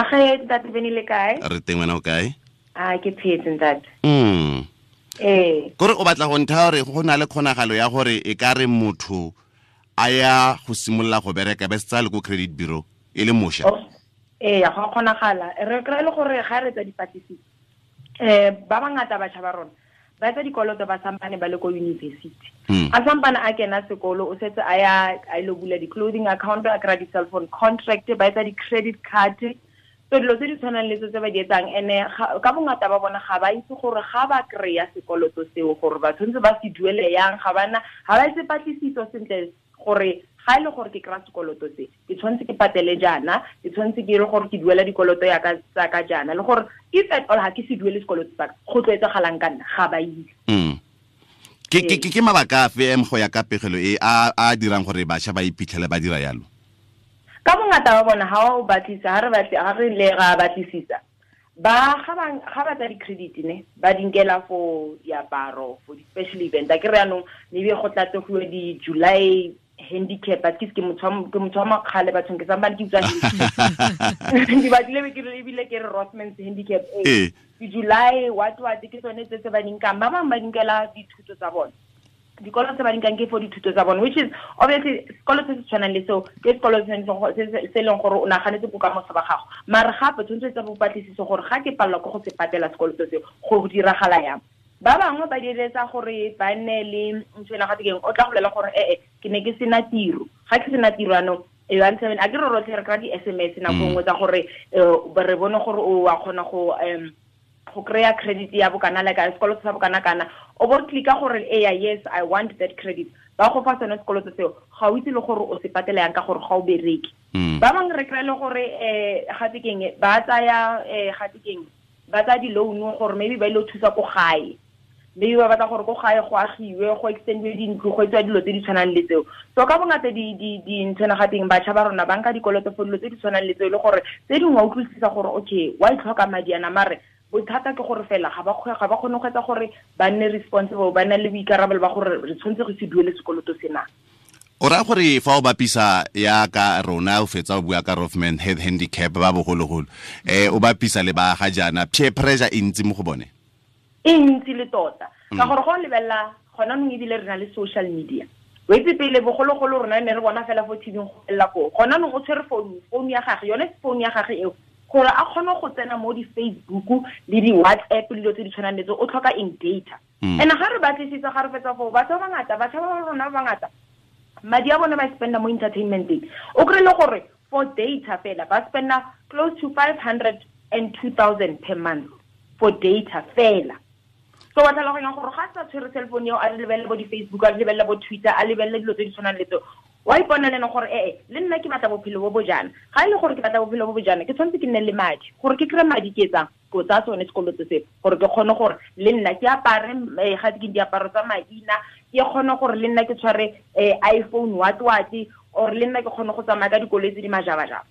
Age ntate Bene le kae? Re teng, wena o kae? A ke phetse, ntate. Kore o batla go ntha gore go na le kgonagalo ya gore e ka re motho a ya go simolola go bereka be setsa le ko credit bureau e le mosha? Ee, go kgonagala. Re kry le gore ga re tsa dipatlisiso, ba bangata batjha ba rona ba etsa dikoloto ba sampane ba le ko university. A sampane a kena sekolo, o setse a ya a ile bula di-clothing account, a kry di-cell phone contract, ba etsa di-credit card. So dilo tse di tshwanang le tse tse ba di etsang, ene ka bongata ba bona ga ba itse gore ga ba kry-a sekoloto seo gore ba tshwanetse ba se duele yang. Ga bana, ga ba etse patlisiso sentle gore ga e le gore ke kry-a sekoloto se, ke tshwanetse ke patele jaana, ke tshwanetse ke ile gore ke duela dikoloto ya ka tsa ka jaana, le gore if at all ga ke se duele sekoloto sa ka, go tlo etsagalang ka nna, ga ba itse. Ke mabaka afe em go ya ka pegelo e a dirang gore bašwa ba iphitlhele ba dira yalo? Ka bongata ba bona, ha o batlisa, ha re batle, ha re le ra batlisisa, ba ga ba ga ba tsa di-credit ne ba di nkela for diaparo, for di-special event. A ke re yanong maybe go tlatse go di-July handicap, at least ke motho wa, ke motho wa makgale bathong, ke sampane ke utlwa handicap. Ke batlile be ke re ebile ke re Rothmans handicap, ee. Di-July what what, ke tsone tse tse ba di nkang. Ba bangwe ba di nkela dithuto tsa bone, dikolo tse ba di nkang ke for dithuto tsa bone, which is obviously sekolo se se tshwanang le seo ke sekolo se leng gore o naganetse bokamoso ba gago. Mare gape tshwanetse o etse bopatlisiso gore ga ke palelwa ke go se patela sekoloto seo, go diragala yang. Ba bangwe ba diretsa gore ba nne le ntho ena gate keng, o tla go bolela gore ee, ke ne ke sena tiro, ga ke sena tiro anong e one seven, a ke re rotlhe re kry-a di-SMS nako nngwe tsa gore re bone gore o wa kgona go kry-a credit ya bokana, like sekoloto sa bokana kana, o bo clicka gore eya, yes, I want that credit, ba go fa sone sekoloto seo. Ga o itse le gore o se patela yang ka gore ga o bereke. Ba bangwe re kry-e le gore gate keng, ba tsaya gate keng, ba tsaya di-loan gore maybe ba ile go thusa ko gae, maybe ba batla gore ko gae go agiwe, go extendiwe dintlo, go etsiwa dilo tse di tshwanang le tseo. So ka bongata dinthwana ga teng, batjha ba rona ba nka dikoloto for dilo tse di tshwanang le tseo, e le gore tse dingwe wa utlwisisa gore okay, wa itlhoka madi ana, mare bothata ke gore fela ga ba kgone go etsa gore ba nne responsible, ba nne le boikarabelo ba gore re tshwanetse go se duele sekoloto sena. O raya gore fa o bapisa ya ka rona, o fetsa o bua ka Rothman head handicap ba bogologolo, o bapisa le ba ga jaana, peer pressure e ntsi mo go bone? E ntsi le tota, ka gore go lebelela gona nong ebile re na le social media. O itse pele bogologolo rona ne re bona fela fo TV go felela koo. Gona nong o tshwere phone, phone ya gage, yone phone ya gage eo, gore a kgone go tsena mo di-Facebook le di-WhatsApp le dilo tse di tshwanang le tseo, o tlhoka eng? Data. And ga re batlisitse, ga re fetsa foo, batho ba bangata, batjha ba rona ba bangata, madi a bone ba spenda mo entertainmenteng. O kry le gore for data fela ba spenda close to 502,000 per month for data fela. So wa tlhaloganya gore ga sa tshwere cell phone eo, a lebelele bo di-Facebook, a lebelele bo Twitter, a lebelele dilo tse di tshwanang le tseo, wa ipona le ene gore ee, le nna ke batla bophelo bo bo jaana. Ga e le gore ke batla bophelo bo bo jaana, ke tshwanetse ke nne le madi. Gore ke kry-e madi, ke etsang? Ko tsaya sone sekoloto se gore ke kgone gore le nna ke apare ga ke diaparo tsa maina, ke kgone gore le nna ke tshware iPhone what what, or le nna ke kgone go tsamaya ka dikoloi tse di majabajaba.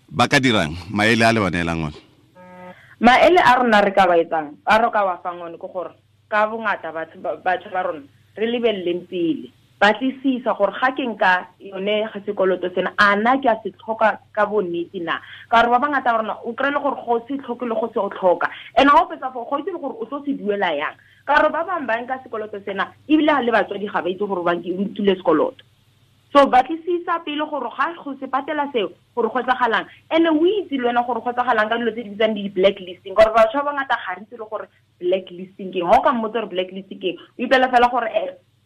Ba ka dirang? Maele a le ba neelang one? Maele a rona re ka ba etsang, a re ka wa fang one, ke gore ka bongata batho ba rona re lebeleleng pele, batlisisa gore ga ke nka yone ga sekoloto sena, a na ke a se tlhoka ka bonnete na? Ka gore ba bangata ba rona o kry-e le gore go se tlhoke le go se o tlhoka, and ga o fetsa foo, go itse le gore o tlo se duela yang. Ka gore ba bangwe ba nka sekoloto sena ebile le batswadi ga ba itse gore ba nkile sekoloto. So batlisisa pele gore ga go se patela seo, gore go etsagalang, and o itse le wena gore go etsagalang ka dilo tse di bitsang di-blacklisting, gore batho ba bangata ga re itse le gore blacklisting ke eng. Ga o ka mmotsa gore blacklisting ke eng, o ipela fela gore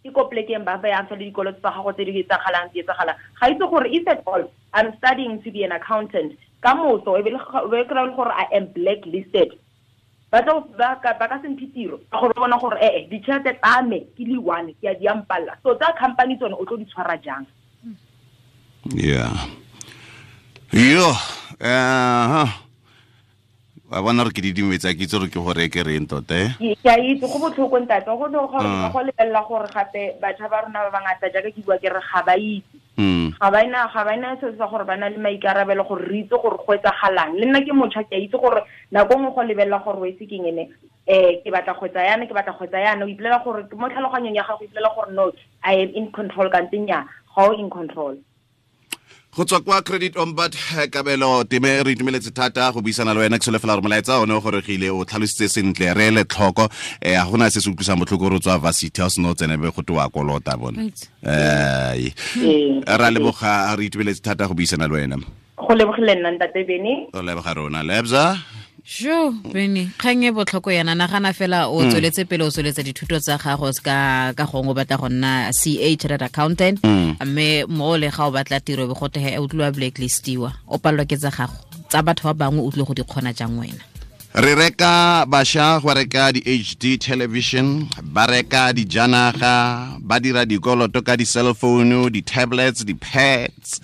ke ko plekeng ba bayang fela dikoloto tsa gago tse di etsagalang, di etsagalang. Ga itse gore if at all I'm studying to be an accountant ka moso, e be le kry-e le gore I am blacklisted, ba tlo ba ka se mphe tiro, ka gore ba bona gore ee, ditšhelete tsa me ke le one ke a di ampalla. So tsa company tsone o tlo di tshwara jang? Yeah, yo, wa bona re ke didimetse, ke itse gore ke gore ke reng tota, eh? Ke a itse go botlhoko, ntate, go ne gore go lebelela gore gape batjha ba rona ba bangata, jaaka ke bua ke re ga ba itse, ga ba ena se sa gore ba na le maikarabelo gore re itse gore go etsagalang. Le nna ke motšha, ke a itse gore nako nngwe go lebelela gore o itse keng ene, ke batla go etsa yana, ke batla go etsa yana, o ipolela gore mo tlhaloganyong ya gago o ipolela gore no, I am in control, kante nnyaa, ga o in control. Go tswa kwa Credit Ombud, Kabelo Time, re itumeletse thata go buisana le wena. Ke solofela gore molaetsa one o goregile, o tlhalositse sentle, re ele tlhoko. Ga gona se se utlwisang botlhoko re tswa varsity, ha o sena o tsene be go te wa kolota bone. Ra leboga, re itumeletse thata go buisana le wena. Go lebogile nna, ntate Bene. O leboga rona, Lebza. Sho Bene, kgang e botlhoko yana. Nagana fela o tsweletse pele, o tsweletsa dithuto tsa gago ka gongwe o batla go nna CA, chartered accountant, mme mo le ga o batla tiro be go tehe o tlile wa blacklistiwa, o palelwa ke tsa gago, tsa batho ba bangwe o tlile go di kgona jang wena? Re reka bašwa go reka di-HD television, ba reka dijanaga, ba dira dikoloto ka di-cell phone, di-tablets, di-pads,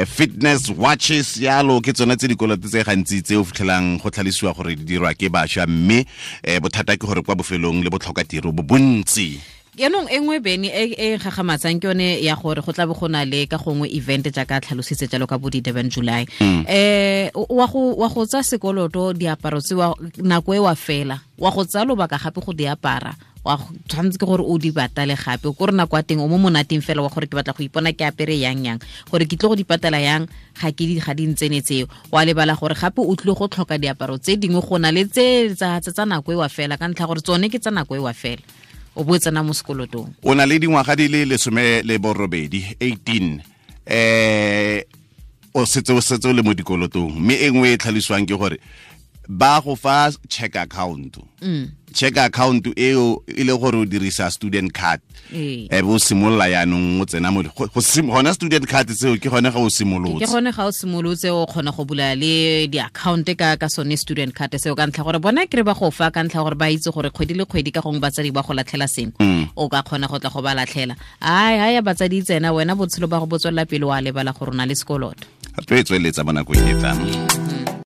fitness watches yalo. Ke tsone tse dikoloto tse gantsi tse o fitlhelang go tlhalosiwa gore di dirwa ke bašwa, mme bothata ke gore kwa bofelong le botlhoka tiro bo bontsi. Yaanong e nngwe, Bene, e gagamatsang ke yone ya gore go tla be go na le ka gongwe event jaaka tlhalositse jalo ka bo di-Durban July, wa go tsa sekoloto diaparo tse nako e wa fela, wa go tsaya lobaka gape go di apara, wa tshwanetse ke gore o di patale gape. Ko re nako ya teng o mo monateng fela wa gore ke batla go ipona ke apere yang yang, gore ke tle go di patala yang, ga ke di ga di ntsene tseo. Wa lebala gore gape o tlile go tlhoka diaparo tse dingwe go na le tse tsa nako e wa fela, ka ntlha gore tsone ke tsa nako e wa fela, o bo tsena mo sekolotong. O na le dingwaga di le 18, o setse o le mo dikolotong. Mme e nngwe e tlhalosiwang ke gore ba go fa check account. Check account eo e le gore o dirisa student card, e bo simolola yaanong o tsena mo gona student card seo, ke gone ga o simolotse. Ke gone ga o simolotse, o kgona go bula le di-account ka sone student card seo, ka ntlha gore bona kry ba go fa ka ntlha gore ba itse gore kgwedi le kgwedi ka gongwe batsadi ba go latlhela sengwe, o ka kgona go tla go ba latlhela. Ai ha ya batsadi tsena, wena botshelo ba go bo tswelela pele, wa lebala gore o na le sekoloto. Re tlo e tsweletsa mo nakong e tlang.